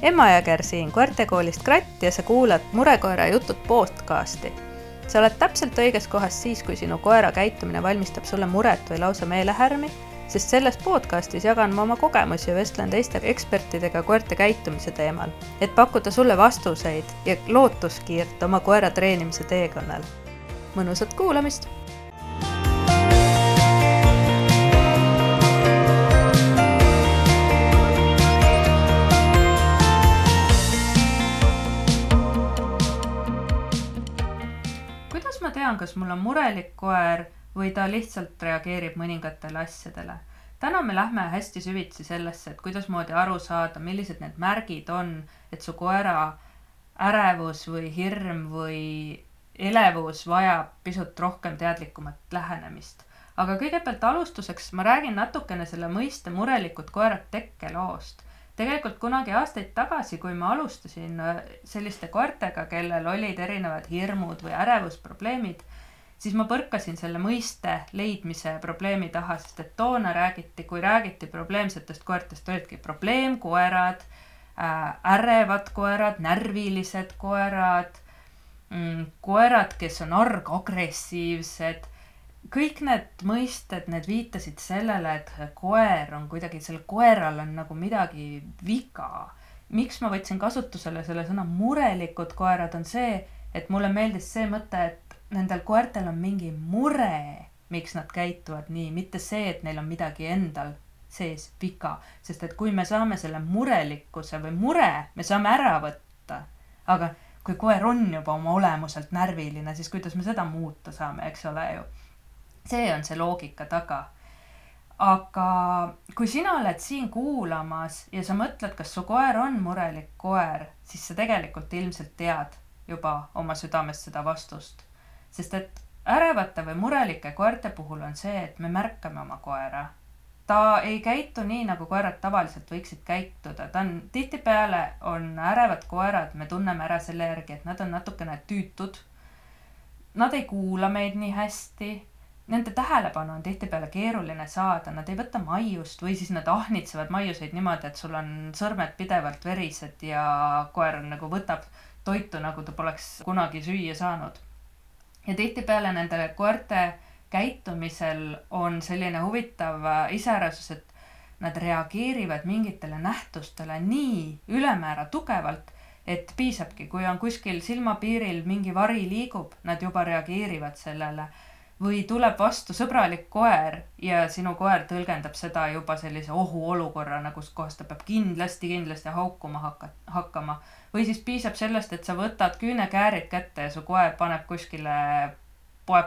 Emma Jõger siin koertekoolist Kratt ja sa kuulad Murekoera jutud podcasti. Sa oled täpselt õiges kohas siis, kui sinu koera käitumine valmistab sulle muret või lausa meelehärmi, sest selles podcastis jagan ma oma kogemusi ja vestlen teiste ekspertidega koerte käitumise teemal, et pakkuda sulle vastuseid ja lootuskiirt oma koera treenimise teekonnal. Mõnusat kuulamist! Kuidas ma tean, kas mul on murelik koer või ta lihtsalt reageerib mõningatele asjadele? Täna me lähme hästi süvitsi sellesse, et kuidas moodi aru saada, millised need märgid on, et su koera ärevus või hirm või elevus vajab pisut rohkem teadlikumat lähenemist. Aga kõigepealt alustuseks ma räägin natukene selle mõiste murelikud koerad tekkeloost. Tegelikult kunagi aastaid tagasi, kui ma alustasin selliste koertega, kellel olid erinevad hirmud või ärevusprobleemid, siis ma põrkasin selle mõiste leidmise probleemi taha, sest et toona kui räägiti probleemsetest koertest, olidki probleemkoerad, ärevad koerad, närvilised koerad, koerad, kes on agressiivsed. Kõik need mõisted, need viitasid sellele, et koer on kuidagi, selle koeral on nagu midagi viga. Miks ma võtsin kasutusele selle sõna murelikud koerad on see, et mulle meeldis see mõte, et nendel koertel on mingi mure, miks nad käituvad nii, mitte see, et neil on midagi endal sees viga. Sest et kui me saame selle murelikkuse või mure, me saame ära võtta, aga kui koer on juba oma olemuselt närviline, siis kuidas me seda muuta saame, eks ole ju. See on see loogika taga. Aga kui sina oled siin kuulamas ja sa mõtled, kas su koer on murelik koer, siis sa tegelikult ilmselt tead juba oma südames seda vastust. Sest et ärevate või murelike koerte puhul on see, et me märkame oma koera. Ta ei käitu nii, nagu koerad tavaliselt võiksid käituda. Tihtipeale on ärevad koerad, me tunneme ära selle järgi, et nad on natukene tüütud. Nad ei kuula meid nii hästi. Nende tähelepanu on tihtipeale keeruline saada, nad ei võta maiust või siis nad ahnitsevad maiuseid niimoodi, et sul on sõrmed pidevalt verised ja koer nagu võtab toitu, nagu ta poleks kunagi süüa saanud. Ja tihtipeale nendele koerte käitumisel on selline huvitav iseärasus, et nad reageerivad mingitele nähtustele nii ülemäära tugevalt, et piisabki, kui on kuskil silmapiiril mingi vari liigub, nad juba reageerivad sellele. Või tuleb vastu sõbralik koer ja sinu koer tõlgendab seda juba sellise ohuolukorrana, kus kohas ta peab kindlasti haukuma hakkama. Või siis piisab sellest, et sa võtad küünekäärid kätte ja su koer poeb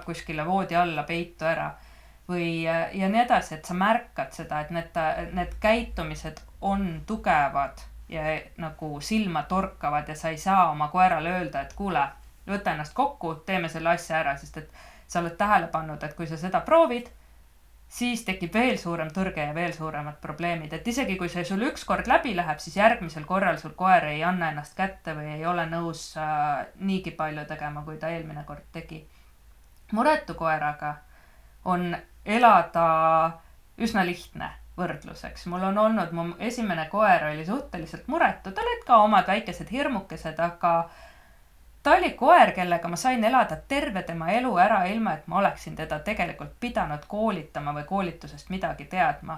kuskile voodi alla peitu ära. Ja nii edasi, et sa märkad seda, et need käitumised on tugevad ja nagu silma torkavad ja sa ei saa oma koerale öelda, et kuule, võta ennast kokku, teeme selle asja ära, sest et sa oled tähele pannud, et kui sa seda proovid, siis tekib veel suurem tõrge ja veel suuremad probleemid. Et isegi kui see sul üks kord läbi läheb, siis järgmisel korral sul koer ei anna ennast kätte või ei ole nõus niigi palju tegema, kui ta eelmine kord tegi. Muretu koeraga on elada üsna lihtne võrdluseks. Mul on olnud, mu esimene koer oli suhteliselt muretu, tal olid ka omad väikesed hirmukesed, aga ta oli koer, kellega ma sain elada terve tema elu ära, ilma et ma oleksin teda tegelikult pidanud koolitama või koolitusest midagi teadma.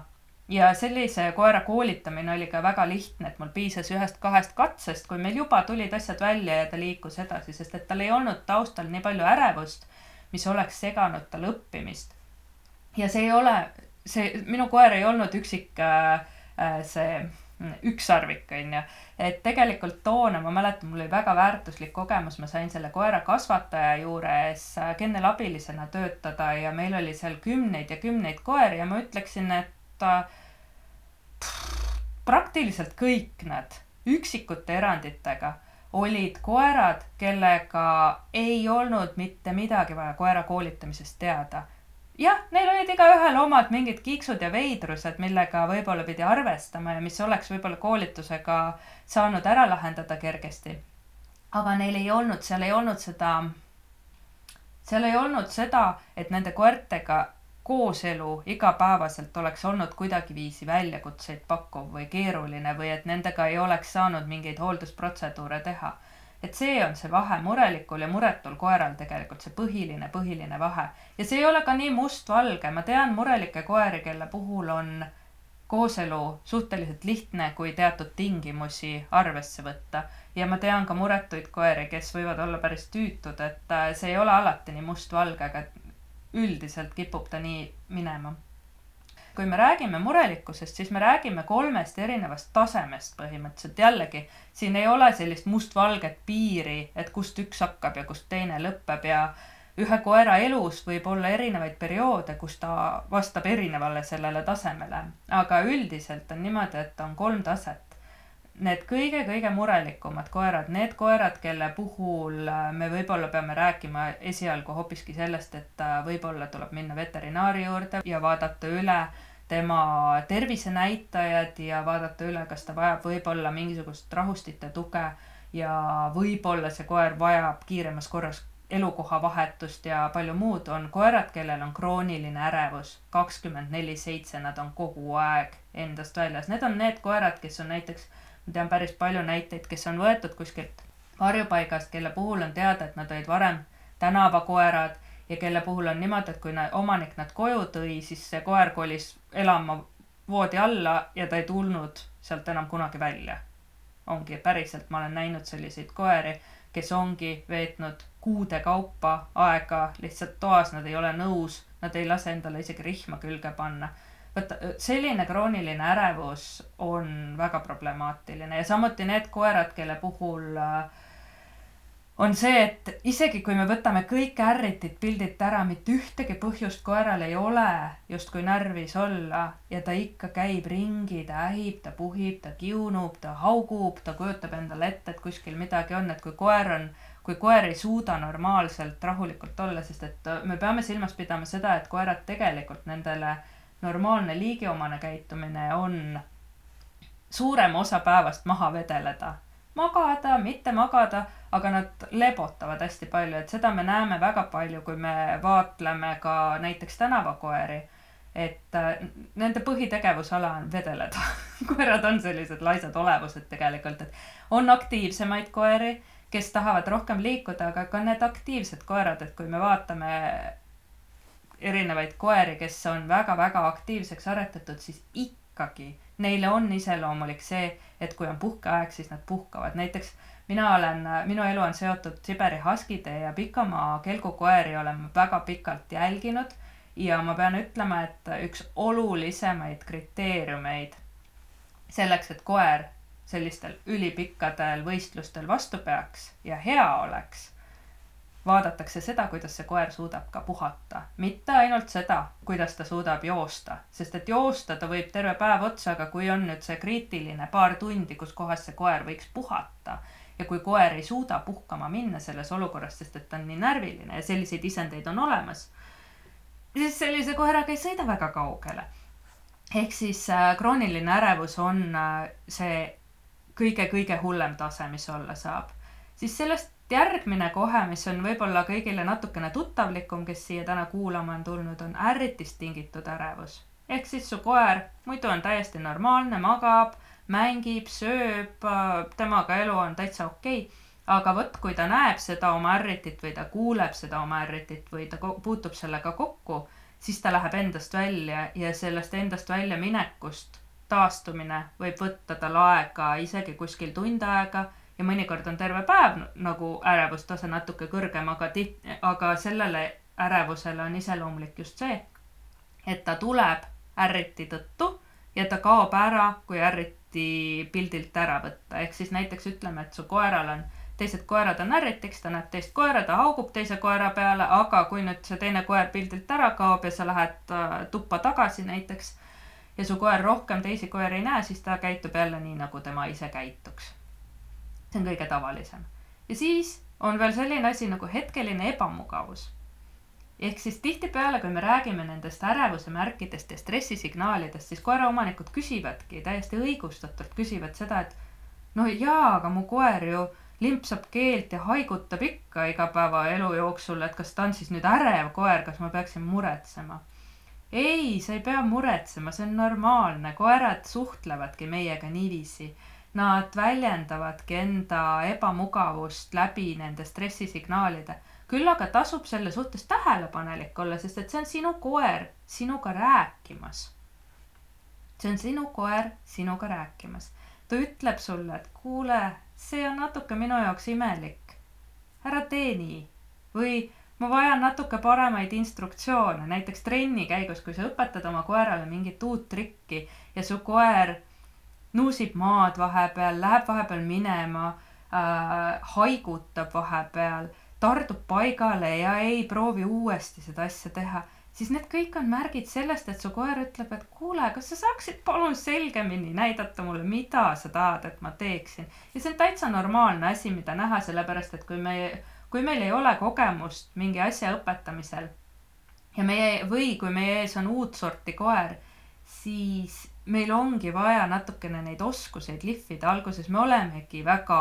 Ja sellise koera koolitamine oli ka väga lihtne, et mul piisas 1-2 katsest, kui meil juba tulid asjad välja ja ta liikus edasi, sest et tal ei olnud taustal nii palju ärevust, mis oleks seganud tal õppimist. Ja minu koer ei olnud üksik ükssarvik, et tegelikult toona, ma mäletan, mul oli väga väärtuslik kogemus, ma sain selle koera kasvataja juures kennelabilisena töötada ja meil oli seal kümneid ja kümneid koeri ja ma ütleksin, et praktiliselt kõik nad üksikute eranditega olid koerad, kellega ei olnud mitte midagi vaja koera koolitamisest teada. Jah, neil olid igaühel omad mingid kiiksud ja veidrused, millega võib-olla pidi arvestama ja mis oleks võib-olla koolitusega saanud ära lahendada kergesti. Aga neil ei olnud, seal ei olnud seda, et nende koertega kooselu igapäevaselt oleks olnud kuidagiviisi väljakutseid pakkuv või keeruline või et nendega ei oleks saanud mingeid hooldusprotseduure teha. Et see on see vahe murelikul ja muretul koeral tegelikult, see põhiline vahe. Ja see ei ole ka nii mustvalge. Ma tean murelikke koeri, kelle puhul on kooselu suhteliselt lihtne, kui teatud tingimusi arvesse võtta. Ja ma tean ka muretuid koeri, kes võivad olla päris tüütud, et see ei ole alati nii mustvalge, aga üldiselt kipub ta nii minema. Kui me räägime murelikkusest, siis me räägime 3 erinevast tasemest põhimõtteliselt. Jällegi, siin ei ole sellist mustvalget piiri, et kust üks hakkab ja kust teine lõpeb ja ühe koera elus võib olla erinevaid perioode, kus ta vastab erinevale sellele tasemele. Aga üldiselt on niimoodi, et on 3 taset. Need kõige murelikumad koerad, need koerad, kelle puhul me võib-olla peame rääkima esialgu hoopiski sellest, et võib-olla tuleb minna veterinaari juurde ja vaadata üle tema tervisenäitajad ja vaadata üle, kas ta vajab võib-olla mingisugust rahustite tuge ja võib-olla see koer vajab kiiremas korras elukoha vahetust ja palju muud, on koerad, kellel on krooniline ärevus 24/7, nad on kogu aeg endast väljas. Need on need koerad, kes on näiteks, ma tean päris palju näiteid, kes on võetud kuskilt varjupaigast, kelle puhul on teada, et nad olid varem tänavakoerad ja kelle puhul on niimoodi, et kui omanik nad koju tõi, siis see koer kolis elama voodi alla ja ta ei tulnud sealt enam kunagi välja. Ongi päriselt, ma olen näinud selliseid koeri, kes ongi veetnud kuude kaupa aega lihtsalt toas, nad ei ole nõus, nad ei lase endale isegi rihma külge panna. Võtta, selline krooniline ärevus on väga problemaatiline ja samuti need koerad, kelle puhul on see, et isegi kui me võtame kõik ärritid pildilt ära, mitte ühtegi põhjust koeral ei ole justkui närvis olla ja ta ikka käib ringi, ta ähib, ta puhib, ta kiunub, ta haugub, ta kujutab endale ette, et kuskil midagi on, et kui koer ei suuda normaalselt rahulikult olla, sest et me peame silmas pidama seda, et koerad tegelikult nendele normaalne liigiomane käitumine on suurem osa päevast maha vedeleda. Magada, mitte magada, aga nad lebotavad hästi palju, et seda me näeme väga palju, kui me vaatleme ka näiteks tänavakoeri, et nende põhitegevusala on vedeleda. Koerad on sellised laisad olevused tegelikult, et on aktiivsemaid koeri, kes tahavad rohkem liikuda, aga ka need aktiivsed koerad, et kui me vaatame erinevaid koeri, kes on väga-väga aktiivseks aretatud, siis ikkagi neile on iseloomulik see, et kui on puhkeaeg, siis nad puhkavad. Näiteks minu elu on seotud Siberi haskide ja pikamaa kelgukoeri olen väga pikalt jälginud ja ma pean ütlema, et üks olulisemaid kriteeriumeid selleks, et koer sellistel ülipikkadel võistlustel vastu peaks ja hea oleks, vaadatakse seda, kuidas see koer suudab ka puhata. Mitte ainult seda, kuidas ta suudab joosta, sest et joosta ta võib terve päev otsa, aga kui on nüüd see kriitiline paar tundi, kus kohas see koer võiks puhata ja kui koer ei suuda puhkama minna selles olukorras, sest et ta on nii närviline ja selliseid isendeid on olemas, siis sellise koeraga ei sõida väga kaugele. Ehk siis krooniline ärevus on see kõige hullem tase, mis olla saab. Siis sellest järgmine kohe, mis on võib-olla kõigile natukene tuttavlikum, kes siia täna kuulama on tulnud, on ärritist tingitud ärevus. Ehk siis su koer muidu on täiesti normaalne, magab, mängib, sööb, temaga elu on täitsa okei. Aga võt, kui ta näeb seda oma ärritit või ta kuuleb seda oma ärritit või ta puutub sellega kokku, siis ta läheb endast välja ja sellest endast välja minekust taastumine võib võtta tal aega isegi kuskil tund aega ja mõnikord on terve päev nagu ärevustase natuke kõrgem, aga sellele ärevusele on iseloomulik just see, et ta tuleb ärriti tõttu ja ta kaob ära, kui ärriti pildilt ära võtta. Ehk siis näiteks ütleme, et su koeral on teised koerad on ärritiks, ta näeb teist koera, ta haugub teise koera peale, aga kui nüüd see teine koer pildilt ära kaob ja sa lähed tuppa tagasi näiteks ja su koer rohkem teisi koeri ei näe, siis ta käitub jälle nii, nagu tema ise käituks. See on kõige tavalisem. Ja siis on veel selline asi nagu hetkeline ebamugavus. Ehk siis tihtipeale, kui me räägime nendest ärevuse märkidest ja stressisignaalidest, siis koeraomanikud küsivadki, täiesti õigustatult küsivad seda, et no jaa, aga mu koer ju limpsab keelt ja haigutab ikka igapäeva elu jooksul, et kas ta on siis nüüd ärev koer, kas ma peaksin muretsema. ei, sa ei pea muretsema, see on normaalne, koerad suhtlevadki meiega niiviisi. Nad väljendavadki enda ebamugavust läbi nende stressisignaalide. Küll aga tasub selle suhtes tähelepanelik olla, sest et see on sinu koer sinuga rääkimas. See on sinu koer sinuga rääkimas. Ta ütleb sulle, et kuule, see on natuke minu jaoks imelik. Ära tee nii. Või ma vajan natuke paremaid instruktsioone, näiteks trenni käigus, kui sa õpetad oma koerale mingit uut trikki ja su koer nuusib maad vahepeal, läheb vahepeal minema, haigutab vahepeal, tardub paigale ja ei proovi uuesti seda asja teha, siis need kõik on märgid sellest, et su koer ütleb, et kuule, kas sa saaksid palun selgemini näidata mulle, mida sa tahad, et ma teeksin. Ja see on täitsa normaalne asi, mida näha, sellepärast, et kui meil ei ole kogemust mingi asja õpetamisel või kui meie ees on uut sorti koer, siis meil ongi vaja natukene neid oskuseid lihvida. Alguses me olemegi väga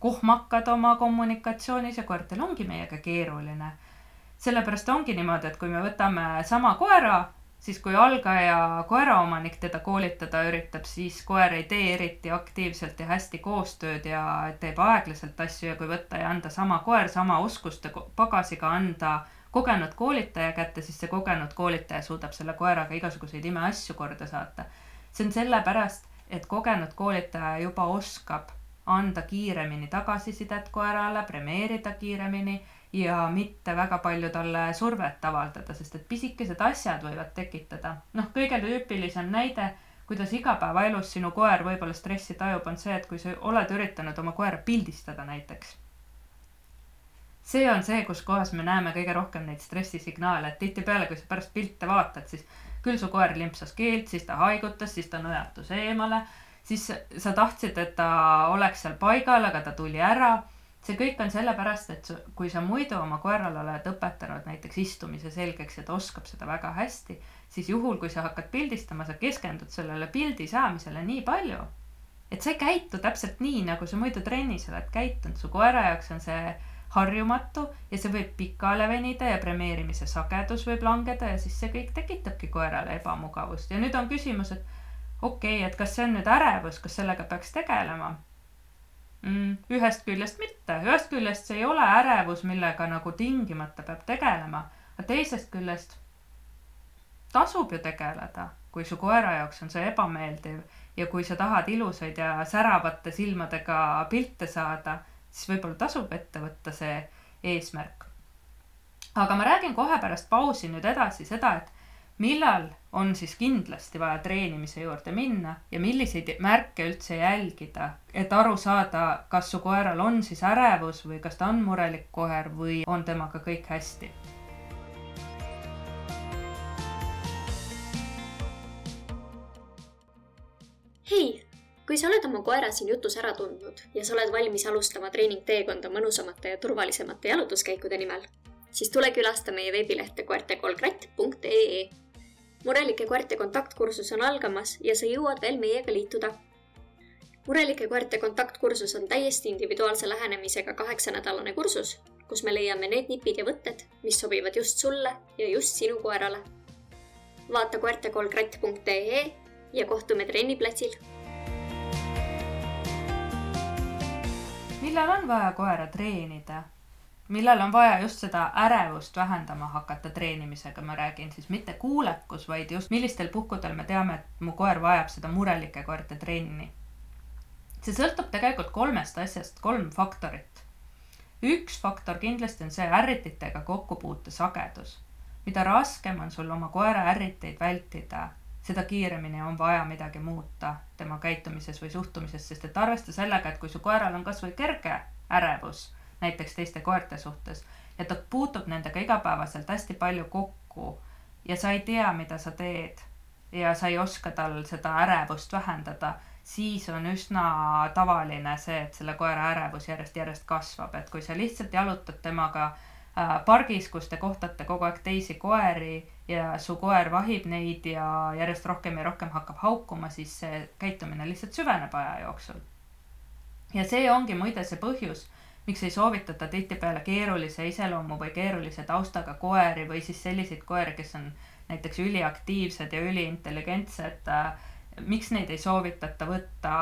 kohmakad oma kommunikatsioonis ja koertel ongi meiega keeruline. Sellepärast ongi niimoodi, et kui me võtame sama koera, siis kui algaja koeraomanik teda koolitada üritab, siis koer ei tee eriti aktiivselt ja hästi koostööd ja teeb aeglaselt asju, ja kui võtta ja anda sama koer sama oskuste pagasiga anda kogenud koolitaja kätte, siis see kogenud koolitaja suudab selle koeraga igasuguseid imeasju korda saata. See on sellepärast, et kogenud koolitaja juba oskab anda kiiremini tagasisidet koerale, premeerida kiiremini ja mitte väga palju talle survet avaldada, sest et pisikesed asjad võivad tekitada. Kõige tüüpilisem näide, kuidas igapäevaelus sinu koer võib-olla stressi tajub, on see, et kui sa oled üritanud oma koera pildistada näiteks. See on see, kus kohas me näeme kõige rohkem neid stressisignaale, et tihtipeale, kui sa pärast pilte vaatad, siis küll su koer limpsas keelt, siis ta haigutas, siis ta nõjatus eemale, siis sa tahtsid, et ta oleks seal paigal, aga ta tuli ära. See kõik on sellepärast, et kui sa muidu oma koerale oled õpetanud näiteks istumise selgeks ja ta oskab seda väga hästi, siis juhul, kui sa hakkad pildistama, sa keskendud sellele pildi saamisele nii palju, et sa ei käitu täpselt nii, nagu sa muidu trennis oled käitunud. Su koera jaoks on see harjumatu ja see võib pikale venida ja premeerimise sagedus võib langeda ja siis see kõik tekitabki koerale ebamugavust. Ja nüüd on küsimus, et okei, et kas see on nüüd ärevus, kas sellega peaks tegelema? Ühest küljest mitte. Ühest küljest see ei ole ärevus, millega nagu tingimata peab tegelema, aga teisest küljest tasub ju tegeleda, kui su koera jaoks on see ebameeldiv ja kui sa tahad ilusaid ja säravate silmadega pilte saada, siis võib-olla tasub ette võtta see eesmärk. Aga ma räägin kohe pärast pausi nüüd edasi seda, et millal on siis kindlasti vaja treenimise juurde minna ja milliseid märke üldse jälgida, et aru saada, kas su koeral on siis ärevus või kas ta on murelik koer või on temaga kõik hästi. Hei! Kui sa oled oma koera siin jutus ära tundnud ja sa oled valmis alustama treeningteekonda mõnusamate ja turvalisemate jalutuskäikude nimel, siis tule külasta meie veebilehte koertekolkratt.ee. Murelike koerte kontaktkursus on algamas ja sa jõuad veel meiega liituda. Murelike koerte kontaktkursus on täiesti individuaalse lähenemisega 8-nädalane kursus, kus me leiame need nipid ja võtted, mis sobivad just sulle ja just sinu koerale. Vaata koertekolkratt.ee ja kohtume trenniplatsil. Millal on vaja koera treenida? Millal on vaja just seda ärevust vähendama hakata treenimisega, ma räägin siis mitte kuulekus, vaid just millistel puhkudel me teame, et mu koer vajab seda murelike koerte trenni. See sõltub tegelikult 3 asjast, 3 faktorit. Üks faktor kindlasti on see ärrititega kokkupuute sagedus. Mida raskem on sul oma koera ärriteid vältida, seda kiiremini on vaja midagi muuta tema käitumises või suhtumises, sest et arvesta sellega, et kui su koeral on kas või kerge ärevus, näiteks teiste koerte suhtes, ja ta puutub nendega igapäevaselt hästi palju kokku ja sa ei tea, mida sa teed ja sa ei oska tal seda ärevust vähendada, siis on üsna tavaline see, et selle koera ärevus järjest kasvab. Et kui sa lihtsalt jalutad temaga pargis, kus te kohtate kogu aeg teisi koeri ja su koer vahib neid ja järjest rohkem ja rohkem hakkab haukuma, siis see käitumine lihtsalt süveneb aja jooksul. Ja see ongi muide see põhjus, miks ei soovitata tihtipeale keerulise iseloomu või keerulise taustaga koeri või siis selliseid koeri, kes on näiteks üliaktiivsed ja üliintelligentsed, miks neid ei soovitata võtta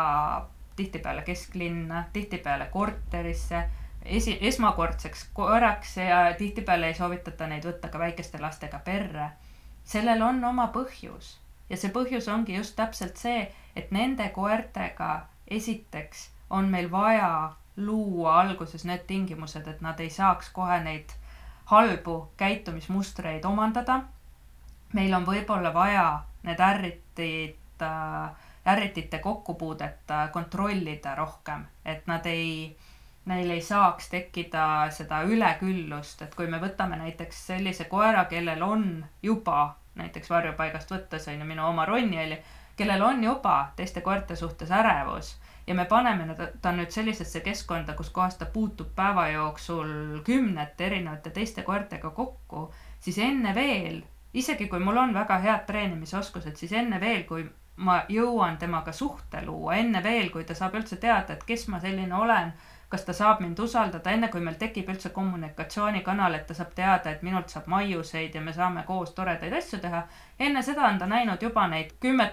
tihtipeale kesklinna, tihtipeale korterisse, esmakordseks koeraks ja tihtipeale ei soovitata neid võtta ka väikeste lastega perre. Sellel on oma põhjus ja see põhjus ongi just täpselt see, et nende koertega esiteks on meil vaja luua alguses need tingimused, et nad ei saaks kohe neid halbu käitumismustreid omandada. Meil on võib-olla vaja need ärritite kokkupuudet kontrollida rohkem, et neil ei saaks tekkida seda üleküllust, et kui me võtame näiteks sellise koera, kellel on juba näiteks varjupaigast võttes, on ju minu oma Ronjeli, kellel on juba teiste koerte suhtes ärevus ja me paneme ta nüüd sellisesse keskkonda, kus kohas ta puutub päeva jooksul 10 erinevate teiste koertega kokku, siis enne veel, isegi kui mul on väga head treenimisoskused, siis enne veel, kui ma jõuan temaga suhte luua, enne veel, kui ta saab üldse teada, et kes ma selline olen, kas ta saab mind usaldada, enne kui meil tekib üldse kommunikatsioonikanal, et ta saab teada, et minult saab maiuseid ja me saame koos toredaid asju teha. Enne seda on ta näinud juba neid 10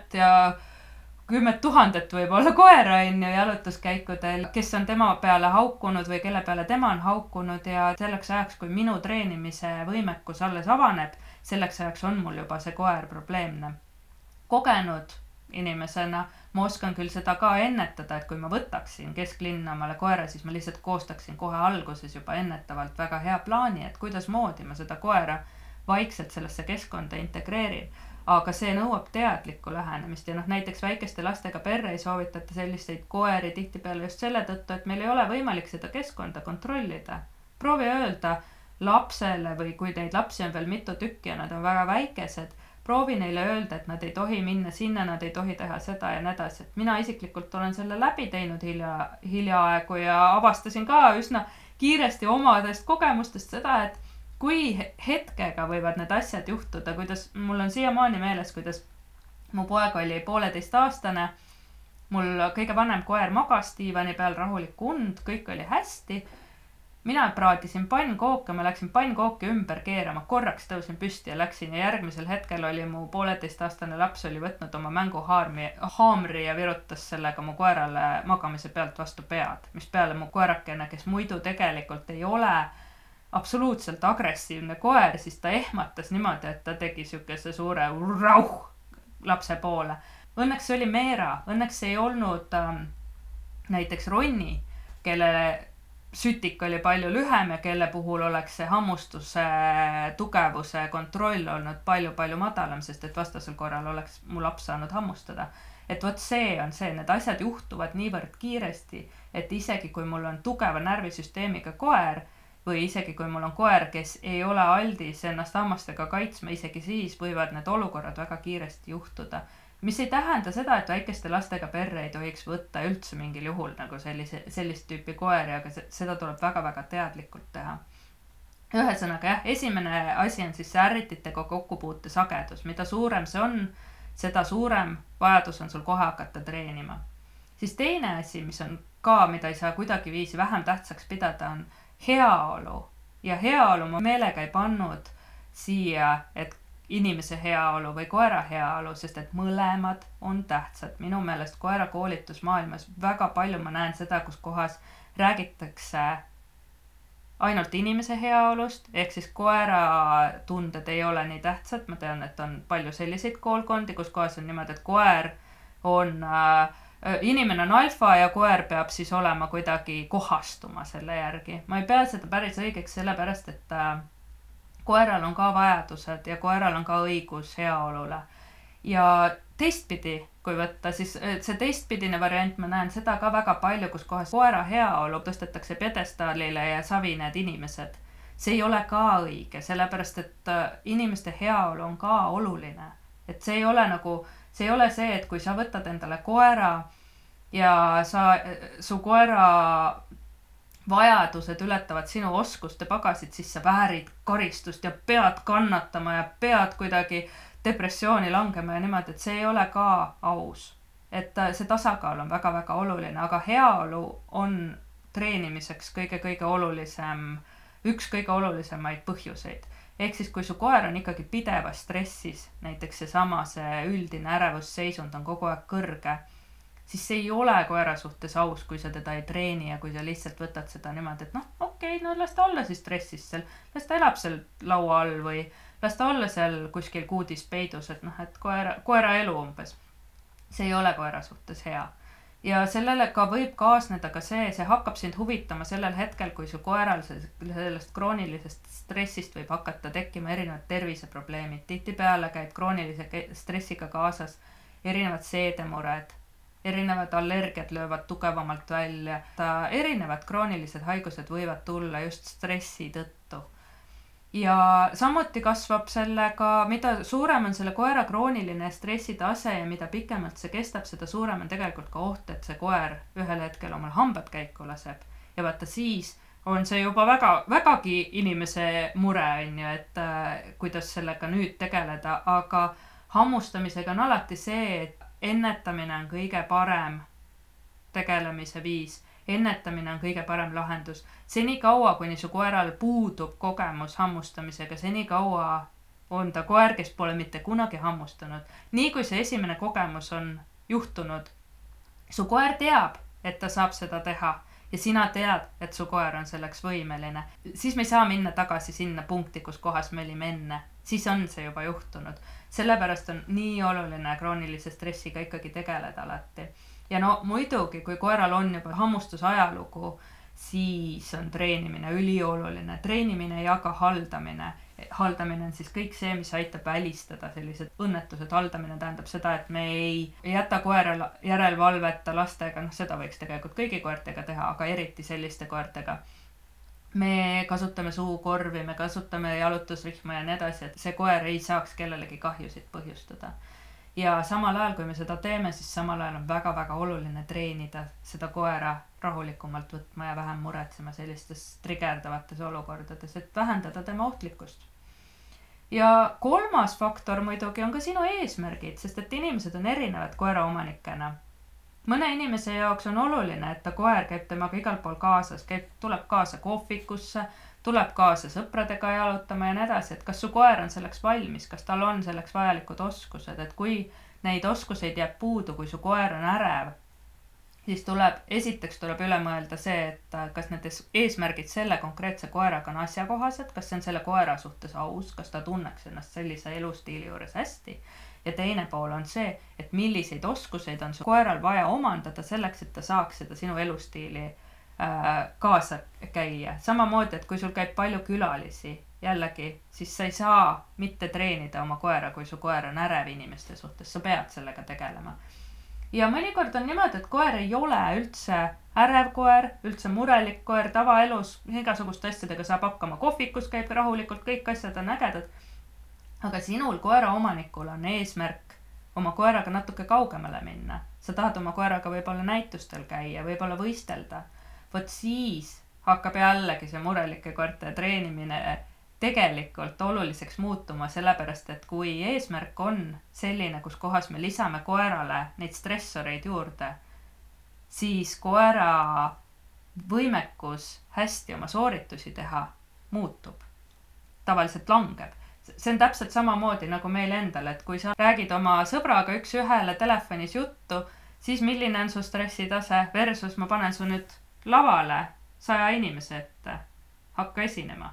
000 võib-olla koera jalutuskäikudel, kes on tema peale haukunud või kelle peale tema on haukunud ja selleks ajaks, kui minu treenimise võimekus alles avaneb, selleks ajaks on mul juba see koer probleemne. Kogenud inimesena ma oskan küll seda ka ennetada, et kui ma võtaksin kesklinna omale koera, siis ma lihtsalt koostaksin kohe alguses juba ennetavalt väga hea plaani, et kuidas moodi ma seda koera vaikselt sellesse keskkonda integreerin. Aga see nõuab teadlikku lähenemist ja näiteks väikeste lastega perre ei soovitata selliseid koeri tihtipeale just selle tõttu, et meil ei ole võimalik seda keskkonda kontrollida. Proovi öelda lapsele või kui neid lapsi on veel mitu tükki ja nad on väga väikesed, proovi neile öelda, et nad ei tohi minna sinna, nad ei tohi teha seda ja nii edasi. Et mina isiklikult olen selle läbi teinud hiljaaegu ja avastasin ka üsna kiiresti omadest kogemustest seda, et kui hetkega võivad need asjad juhtuda, kuidas mul on siiamaani meeles, kuidas mu poeg oli 1,5-aastane, mul kõige vanem koer magas diivani peal rahulik und, kõik oli hästi. Mina praadisin pannkooke, ma läksin pannkooki ümber keerama, korraks tõusin püsti ja läksin ja järgmisel hetkel oli mu 1,5-aastane laps oli võtnud oma mänguhaamri ja virutas sellega mu koerale magamise pealt vastu pead, mis peale mu koerakene, kes muidu tegelikult ei ole absoluutselt agressiivne koer, siis ta ehmatas niimoodi, et ta tegi sükese suure rauh lapse poole. Õnneks see oli Meera, õnneks ei olnud näiteks Ronni, kelle sütik oli palju lühem ja kelle puhul oleks see hammustuse tugevuse kontroll olnud palju madalam, sest et vastasel korral oleks mu laps saanud hammustada. Et vot see on see, need asjad juhtuvad niivõrd kiiresti, et isegi kui mul on tugeva närvisüsteemiga koer või isegi kui mul on koer, kes ei ole aldis ennast hammastega kaitsma, isegi siis võivad need olukorrad väga kiiresti juhtuda. Mis ei tähenda seda, et väikeste lastega perre ei tohiks võtta üldse mingil juhul nagu sellist tüüpi koeri, aga seda tuleb väga teadlikult teha. Ühesõnaga jah, esimene asi on siis see ärrititega kokkupuute sagedus. Mida suurem see on, seda suurem vajadus on sul kohe hakata treenima. Siis teine asi, mis on ka, mida ei saa kuidagi viisi vähem tähtsaks pidada, on heaolu. Ja heaolu ma meelega ei pannud siia, et inimese heaolu või koera heaolu, sest et mõlemad on tähtsad. Minu meelest koera koolitusmaailmas väga palju ma näen seda, kus kohas räägitakse ainult inimese heaolust, ehk siis koera tunded ei ole nii tähtsad. Ma tean, et on palju selliseid koolkondi, kus kohas on niimoodi, et koer on, inimene on alfa ja koer peab siis olema kuidagi kohastuma selle järgi. Ma ei pea seda päris õigeks sellepärast, et koeral on ka vajadused ja koeral on ka õigus heaolule. Ja teistpidi, kui võtta, siis see teistpidine variant, ma näen seda ka väga palju, kus kohas koera heaolu tõstetakse pjedestaalile ja savi need inimesed. See ei ole ka õige, sellepärast et inimeste heaolu on ka oluline. Et see ei ole see, et kui sa võtad endale koera ja su koera vajadused ületavad sinu oskuste pagasid, siis sa väärid karistust ja pead kannatama ja pead kuidagi depressiooni langema ja niimoodi, et see ei ole ka aus. Et see tasakaal on väga oluline, aga heaolu on treenimiseks kõige olulisem, üks kõige olulisemaid põhjuseid. Ehk siis, kui su koer on ikkagi pidevas stressis, näiteks see üldine ärevusseisund on kogu aeg kõrge, siis see ei ole koera suhtes aus, kui sa teda ei treeni ja kui sa lihtsalt võtad seda niimoodi, et okei, las ta olla siis stressis seal, las ta elab seal laua all või las ta olla seal kuskil kuudis peidus, et et koera elu umbes. See ei ole koera suhtes hea. Ja sellele ka võib kaasneda ka see hakkab sind huvitama sellel hetkel, kui su koeral sellest kroonilisest stressist võib hakata tekkima erinevad terviseprobleemid. Tihtipeale käib kroonilise stressiga kaasas erinevad seedemured, erinevad allergiad löövad tugevamalt välja, erinevad kroonilised haigused võivad tulla just stressi tõttu. Ja samuti kasvab sellega, mida suurem on selle koera krooniline stressitase ja mida pikemalt see kestab, seda suurem on tegelikult ka oht, et see koer ühel hetkel omal hambad käiku laseb. Ja vaata siis on see juba vägagi inimese mure, on ju, et kuidas sellega nüüd tegeleda, aga hammustamisega on alati see, et ennetamine on kõige parem tegelemise viis. Ennetamine on kõige parem lahendus. Seni kaua, kuni su koeral puudub kogemus hammustamisega, seni kaua on ta koer, kes pole mitte kunagi hammustanud. Nii kui see esimene kogemus on juhtunud, su koer teab, et ta saab seda teha ja sina tead, et su koer on selleks võimeline. Siis me ei saa minna tagasi sinna punkti, kus kohas me olime enne. Siis on see juba juhtunud. Sellepärast on nii oluline kroonilise stressiga ikkagi tegeleda alati. Ja muidugi, kui koeral on juba hammustusajalugu, siis on treenimine ülioluline. Treenimine ja ka haldamine. Haldamine on siis kõik see, mis aitab välistada sellised õnnetused. Haldamine tähendab seda, et me ei jäta koera järelvalveta lastega, seda võiks tegelikult kõigi koertega teha, aga eriti selliste koertega. Me kasutame suukorvi, me kasutame jalutusrihma ja nii edasi, et see koer ei saaks kellelegi kahjusid põhjustada. Ja samal ajal, kui me seda teeme, siis samal ajal on väga-väga oluline treenida seda koera rahulikumalt võtma ja vähem muretsema sellistes trigerdavates olukordades, et vähendada tema ohtlikkust. Ja kolmas faktor muidugi on ka sinu eesmärgid, sest et inimesed on erinevad koera omanikena. Mõne inimese jaoks on oluline, et ta koer käib temaga igal pool kaasas, tuleb kaasa kohvikusse, tuleb kaasa sõpradega jalutama ja nii edasi, et kas su koer on selleks valmis, kas tal on selleks vajalikud oskused, et kui neid oskuseid jääb puudu, kui su koer on ärev, siis esiteks tuleb üle mõelda see, et kas need eesmärgid selle konkreetse koeraga on asjakohased, kas see on selle koera suhtes aus, kas ta tunneks ennast sellise elustiili juures hästi. Ja teine pool on see, et milliseid oskuseid on su koeral vaja omandada selleks, et ta saaks seda sinu elustiili kaasa käia. Samamoodi, et kui sul käib palju külalisi, jällegi, siis sa ei saa mitte treenida oma koera, kui su koer on ärev inimeste suhtes, sa pead sellega tegelema. Ja mõnikord on niimoodi, et koer ei ole üldse ärev koer, üldse murelik koer, tavaelus, igasuguste asjadega saab hakkama, kohvikus käib rahulikult, kõik asjad on ägedad. Aga sinul koera omanikul on eesmärk oma koeraga natuke kaugemale minna. Sa tahad oma koeraga võib-olla näitustel käia, võib-olla võistelda. Võt siis hakkab jällegi see murelike koerte treenimine tegelikult oluliseks muutuma, sellepärast, et kui eesmärk on selline, kus kohas me lisame koerale neid stressoreid juurde, siis koera võimekus hästi oma sooritusi teha muutub. Tavaliselt langeb. See on täpselt samamoodi nagu meil endal, et kui sa räägid oma sõbraga üks ühele telefonis juttu, siis milline on su stressitase versus ma panen su nüüd lavale 100 inimese ette, hakka esinema.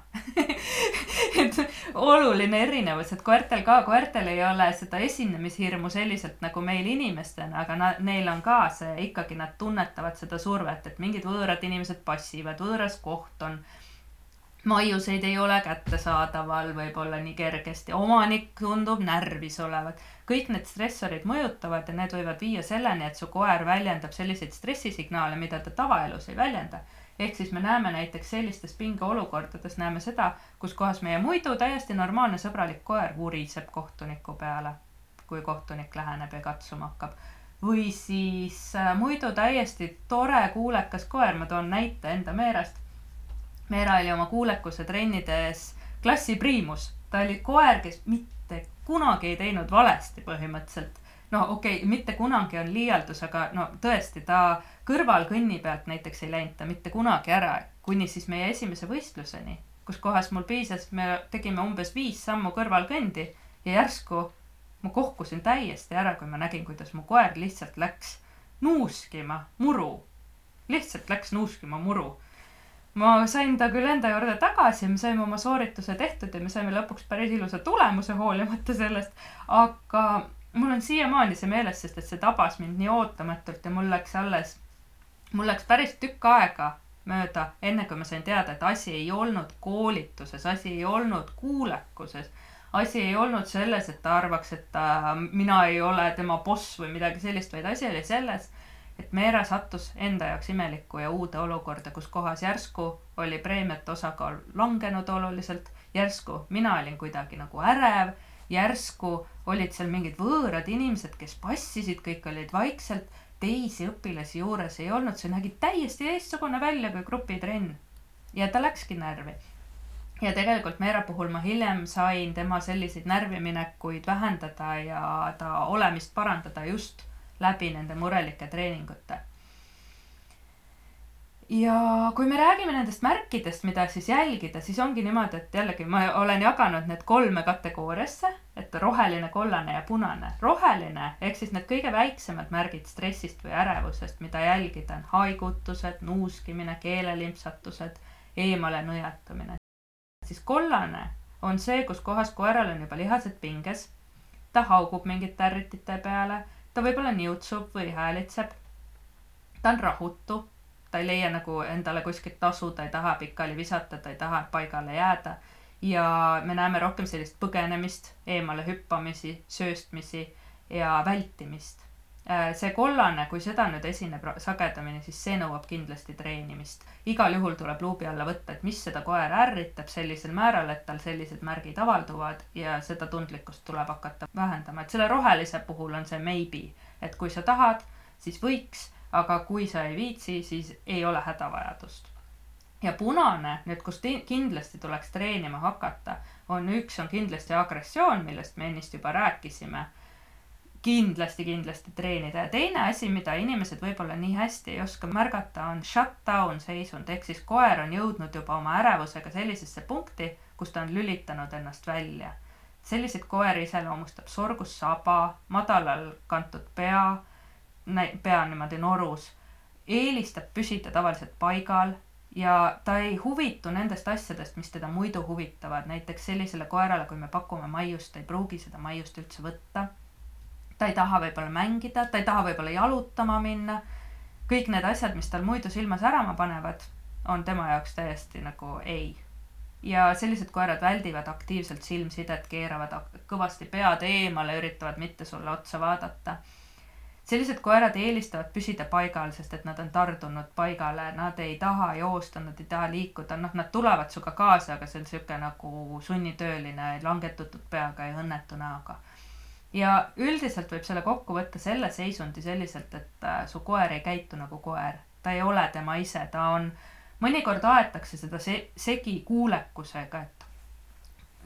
Et oluline erinevus, et koertel ei ole seda esinemishirmu selliselt nagu meil inimestena, aga neil on ka see, ikkagi nad tunnetavad seda survet, et mingid võõrad inimesed passivad, võõras koht on, maiuseid ei ole kättesaadaval võib-olla nii kergesti, omanik tundub närvis olevat. Kõik need stressorid mõjutavad ja need võivad viia selleni, et su koer väljendab selliseid stressisignaale, mida ta tavaelus ei väljenda. Ehk siis me näeme näiteks sellistes pingeolukordades, näeme seda, kus kohas meie muidu täiesti normaalne sõbralik koer vuriseb kohtuniku peale, kui kohtunik läheneb ja katsuma hakkab. Või siis muidu täiesti tore kuulekas koer, ma toon näite enda Meerast. Meera oli oma kuulekuse trennides klassi priimus. Ta oli koer, kes mitte kunagi ei teinud valesti põhimõtteliselt. Mitte kunagi on liialdus, aga tõesti, ta kõrval kõnni pealt näiteks ei läinud ta mitte kunagi ära, kuni siis meie esimese võistluseni, kus kohas mul piisas, me tegime umbes 5 sammu kõrvalkõndi ja järsku ma kohkusin täiesti ära, kui ma nägin, kuidas mu koer lihtsalt läks nuuskima muru. Lihtsalt läks nuuskima muru. Ma sain ta küll enda juurde tagasi, me saime oma soorituse tehtud ja me saime lõpuks päris ilusa tulemuse hoolimata sellest, aga mul on siiamaani see meeles, sest et see tabas mind nii ootamatult ja mul läks päris tükk aega mööda, enne kui ma sain teada, et asi ei olnud koolituses, asi ei olnud kuulekuses, asi ei olnud selles, et ta arvaks, et mina ei ole tema boss või midagi sellist, vaid asi oli selles, et Meera sattus enda jaoks imelikku ja uude olukorda, kus kohas järsku oli preemiate osakaal langenud oluliselt, järsku mina olin kuidagi nagu ärev, järsku olid seal mingid võõrad inimesed, kes passisid, kõik olid vaikselt, teisi õpilasi juures ei olnud, see nägi täiesti teistsugune välja kui grupitrenn. Ja ta läkski närvi. Ja tegelikult Meera puhul ma hiljem sain tema selliseid närviminekuid vähendada ja ta olemist parandada just läbi nende murelike treeningute. Ja kui me räägime nendest märkidest, mida siis jälgida, siis ongi niimoodi, et jällegi ma olen jaganud need 3 kategooriasse, et roheline, kollane ja punane. Roheline, ehk siis need kõige väiksemad märgid stressist või ärevusest, mida jälgida on haigutused, nuuskimine, keelelimpsatused, eemale nõjatamine. Siis kollane on see, kus kohas koeral on juba lihased pinges, ta haugub mingite ärritite peale, ta võib-olla niutsub või häälitseb, ta on rahutu, ta ei leia nagu endale kuskilt tasu, ta ei taha pikali visata, ta ei taha paigale jääda ja me näeme rohkem sellist põgenemist, eemale hüppamisi, sööstmisi ja vältimist. See kollane, kui seda nüüd esineb sagedamini, siis see nõuab kindlasti treenimist. Igal juhul tuleb luubi alla võtta, et mis seda koer ärritab sellisel määral, et tal sellised märgid avalduvad ja seda tundlikkust tuleb hakata vähendama. Et selle rohelise puhul on see maybe, et kui sa tahad, siis võiks, aga kui sa ei viitsi, siis ei ole hädavajadust. Ja punane, nüüd kus kindlasti tuleks treenima hakata, on kindlasti agressioon, millest me ennist juba rääkisime. Kindlasti treenida. Ja teine asi, mida inimesed võib-olla nii hästi ei oska märgata, on shutdown seisund, ehk siis koer on jõudnud juba oma ärevusega sellisesse punkti, kus ta on lülitanud ennast välja. Selliseid koeri iseloomustab sorgus saba, madalal kantud pea niimoodi norus, eelistab püsida tavaliselt paigal ja ta ei huvitu nendest asjadest, mis teda muidu huvitavad. Näiteks sellisele koerale, kui me pakume maiust, ta ei pruugi seda maiust üldse võtta. Ta ei taha võib-olla mängida, ta ei taha võib-olla jalutama minna. Kõik need asjad, mis tal muidu silma särama panevad, on tema jaoks täiesti nagu ei. Ja sellised koerad väldivad aktiivselt silmsidet, keeravad kõvasti pead eemale, üritavad mitte sulle otsa vaadata. Sellised koerad eelistavad püsida paigal, sest et nad on tardunud paigale, nad ei taha joosta, nad ei taha liikuda, nad tulevad suga kaasa, aga see on siuke nagu sunnitööline, langetutud peaga ja õnnetu näoga. Ja üldiselt võib selle kokku võtta selle seisundi selliselt, et su koer ei käitu nagu koer. Ta ei ole tema ise, ta on, mõnikord aetakse seda segi kuulekusega, et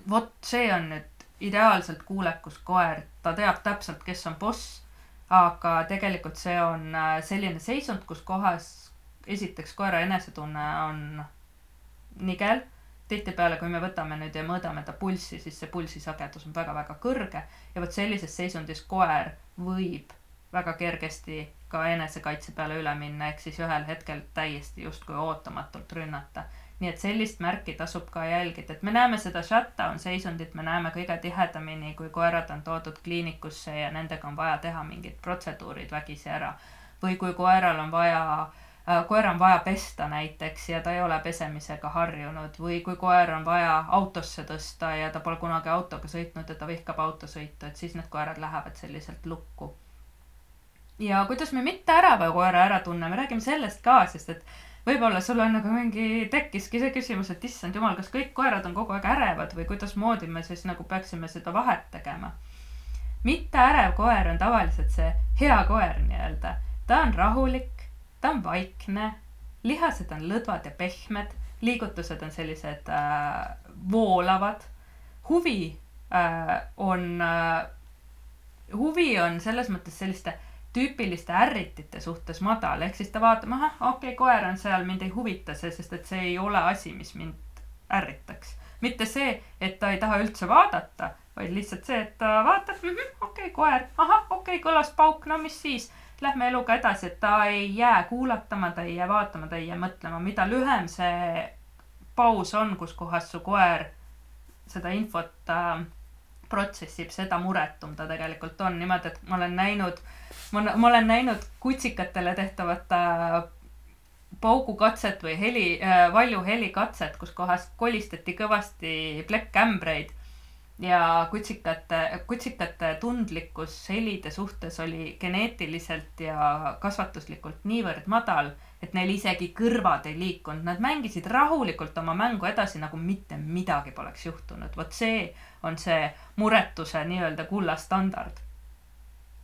vot see on nüüd ideaalselt kuulekus koer, ta teab täpselt, kes on boss, aga tegelikult see on selline seisund, kus kohas esiteks koera enesetunne on nigel. Tihtipeale, kui me võtame nüüd ja mõõdame ta pulssi, siis see pulsisagedus on väga-väga kõrge ja võt sellises seisundis koer võib väga kergesti ka enesekaitse peale üle minna, ehk siis ühel hetkel täiesti justkui ootamatult rünnata. Nii et sellist märki tasub ka jälgida, et me näeme seda shutdown seisundit, me näeme kõige tihedamini, kui koerad on toodud kliinikusse ja nendega on vaja teha mingid protseduurid vägisi ära. Või kui koera on vaja pesta näiteks ja ta ei ole pesemisega harjunud, või kui koer on vaja autosse tõsta ja ta pole kunagi autoga sõitnud ja ta vihkab autosõitu, et siis need koerad lähevad selliselt lukku. Ja kuidas me mitte ärava koera ära tunne, me räägime sellest ka, sest et võib-olla sul on nagu tekkiski see küsimus, et issand jumal, kas kõik koerad on kogu aeg ärevad või kuidas moodi me siis nagu peaksime seda vahet tegema. Mitte ärev koer on tavaliselt see hea koer nii-öelda. Ta on rahulik, ta on vaikne, lihased on lõdvad ja pehmed, liigutused on sellised voolavad. Huvi on selles mõttes selliste tüüpiliste ärritite suhtes madal, ehk siis ta vaatab, koer on seal, mind ei huvita see, sest et see ei ole asi, mis mind ärritaks. Mitte see, et ta ei taha üldse vaadata, vaid lihtsalt see, et ta vaatab, okei, koer, kõlas pauk, no mis siis, lähme eluga edasi, et ta ei jää kuulatama, ta ei jää vaatama, ta ei jää mõtlema. Mida lühem see paus on, kus kohas su koer seda infot protsessib, seda muretum ta tegelikult on. Niimoodi, et ma olen näinud kutsikatele tehtavat paugukatset või valju helikatset, kus kohas kolistati kõvasti plekkkämbreid ja kutsikate tundlikkus helide suhtes oli geneetiliselt ja kasvatuslikult niivõrd madal, et neil isegi kõrvad ei liikunud. Nad mängisid rahulikult oma mängu edasi, nagu mitte midagi poleks juhtunud. Vot see on see muretuse nii-öelda kullastandard.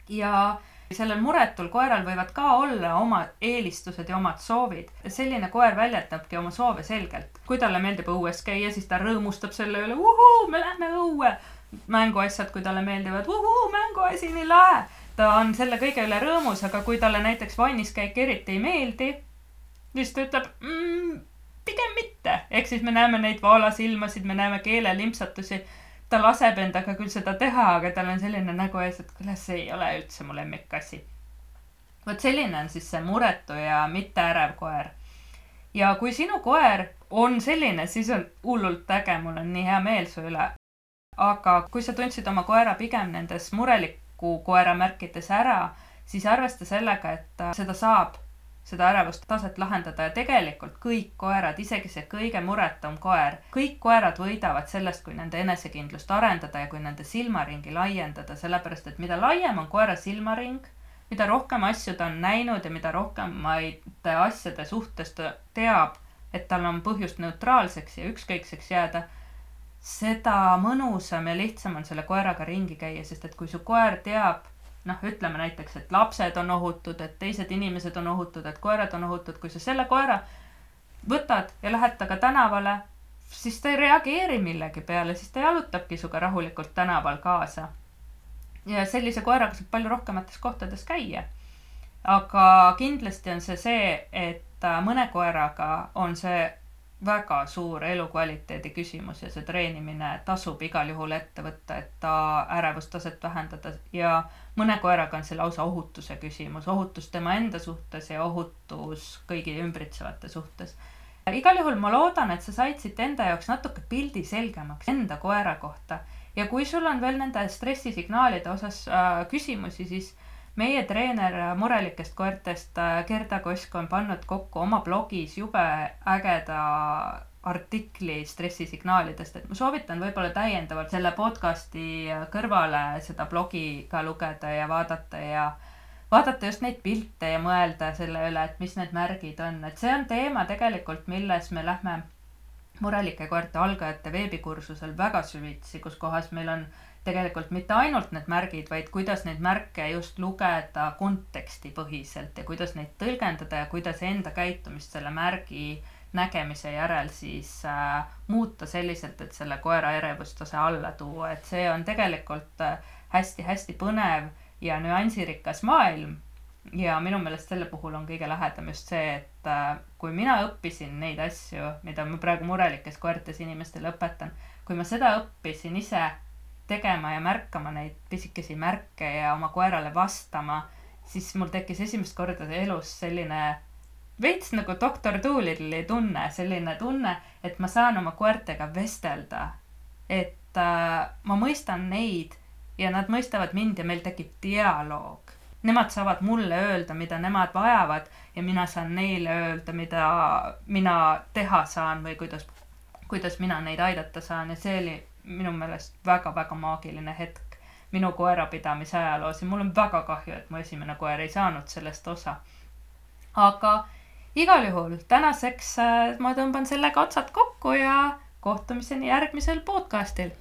Ja sellel muretul koeral võivad ka olla oma eelistused ja omad soovid. Selline koer väljendabki oma soove selgelt. Kui talle meeldib õues käia, siis ta rõõmustab selle üle, me lähme õue. Mänguasjad, kui talle meeldivad, mänguasi nii lahe. Ta on selle kõige üle rõõmus, aga kui talle näiteks vanniskäik eriti ei meeldi, siis ta ütleb, pigem mitte. Ehk siis me näeme neid vaalasilmasid, me näeme keelelimpsatusi. Ta laseb endaga küll seda teha, aga tal on selline nägu ees, et küll see ei ole üldse mu lemmikasi. Vot selline on siis see muretu ja mitte ärev koer. Ja kui sinu koer on selline, siis on hullult äge, mul on nii hea meel su üle. Aga kui sa tundsid oma koera pigem nendes mureliku koera märkides ära, siis arvesta sellega, et seda saab, seda ärevust taset lahendada ja tegelikult kõik koerad, isegi see kõige muretum koer, kõik koerad võidavad sellest, kui nende enesekindlust arendada ja kui nende silmaringi laiendada, sellepärast, et mida laiem on koera silmaring, mida rohkem asju ta on näinud ja mida rohkem asjade suhtes ta teab, et tal on põhjust neutraalseks ja ükskõikseks jääda, seda mõnusam ja lihtsam on selle koeraga ringi käia, sest et kui su koer teab, ütleme näiteks, et lapsed on ohutud, et teised inimesed on ohutud, et koerad on ohutud. Kui sa selle koera võtad ja lähed taga tänavale, siis ta ei reageeri millegi peale, siis ta jalutabki suga rahulikult tänaval kaasa. Ja sellise koeraga saab palju rohkemates kohtades käia. Aga kindlasti on see, et mõne koeraga on see väga suur elukvaliteedi küsimus ja see treenimine tasub igal juhul ette võtta, et ta ärevustaset vähendada ja mõne koeraga on see lausa ohutuse küsimus, ohutus tema enda suhtes ja ohutus kõigi ümbritsevate suhtes. Igal juhul ma loodan, et sa said siit enda jaoks natuke pildi selgemaks enda koera kohta ja kui sul on veel nende stressisignaalide osas küsimusi, siis meie treener murelikest koertest Gerda Kosk on pannud kokku oma blogis jube ägeda artikli stressisignaalidest, et ma soovitan võib-olla täiendavalt selle podcasti kõrvale seda blogi ka lugeda ja vaadata just neid pilte ja mõelda selle üle, et mis need märgid on. Et see on teema tegelikult, milles me lähme murelike koerte algajate veebikursusel väga süvitsi, kus kohas meil on tegelikult mitte ainult need märgid, vaid kuidas neid märke just lugeda konteksti põhiselt ja kuidas neid tõlgendada ja kuidas enda käitumist selle märgi nägemise järel siis muuta selliselt, et selle koera ärevustase alla tuua. Et see on tegelikult hästi-hästi põnev ja nüansirikas maailm ja minu meelest selle puhul on kõige lähedam just see, et kui mina õppisin neid asju, mida ma praegu murelikes koertes inimestele õpetan, kui ma seda õppisin ise tegema ja märkama neid pisikesi märke ja oma koerale vastama, siis mul tekkis esimest korda elus selline veits nagu Dr. Doolittle'i tunne, selline tunne, et ma saan oma koertega vestelda, et ma mõistan neid ja nad mõistavad mind ja meil tekib dialoog. Nemad saavad mulle öelda, mida nemad vajavad ja mina saan neile öelda, mida mina teha saan või kuidas mina neid aidata saan ja see oli minu meelest väga-väga maagiline hetk minu koerapidamise ajaloos ja mul on väga kahju, et mu esimene koer ei saanud sellest osa. Aga igal juhul tänaseks ma tõmban sellega otsad kokku ja kohtumiseni järgmisel podcastil.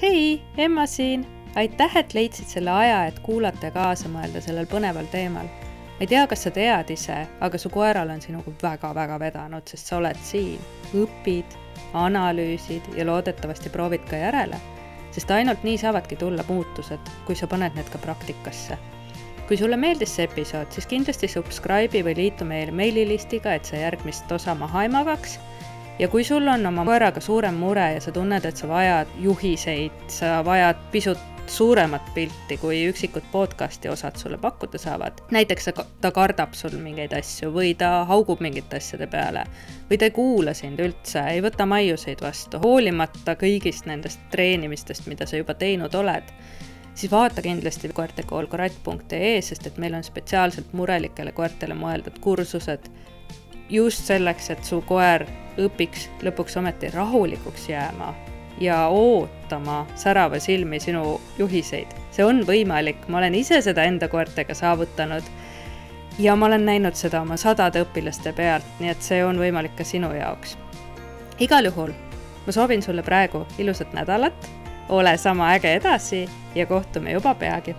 Hei, Emma siin! Aitäh, et leidsid selle aja, et kuulata ja kaasa mõelda sellel põneval teemal. Ma ei tea, kas sa tead ise, aga su koeral on sinuga väga-väga vedanud, sest sa oled siin, õpid, analüüsid ja loodetavasti proovid ka järele. sest ainult nii saavadki tulla muutused, kui sa paned need ka praktikasse. Kui sulle meeldis see episood, siis kindlasti subscribe'i või liitu meie meililistiga, et sa järgmist osa maha ei magaks. Ja kui sul on oma koeraga suurem mure ja sa tunned, et sa vajad juhiseid, sa vajad pisut suuremat pilti, kui üksikud podcasti osad sulle pakkuda saavad. Näiteks ta kardab sul mingeid asju või ta haugub mingite asjade peale või ta ei kuula sind üldse, ei võta maiuseid vastu, hoolimata kõigist nendest treenimistest, mida sa juba teinud oled, siis vaata kindlasti koertekoolkratt.ee, sest et meil on spetsiaalselt murelikele koertele mõeldud kursused just selleks, et su koer õpiks lõpuks ometi rahulikuks jääma ja ootama särava silmi sinu juhiseid. See on võimalik, ma olen ise seda enda koertega saavutanud ja ma olen näinud seda oma 100 õpilaste pealt, nii et see on võimalik ka sinu jaoks. Igal juhul, ma soovin sulle praegu ilusat nädalat, ole sama äge edasi ja kohtume juba peagi.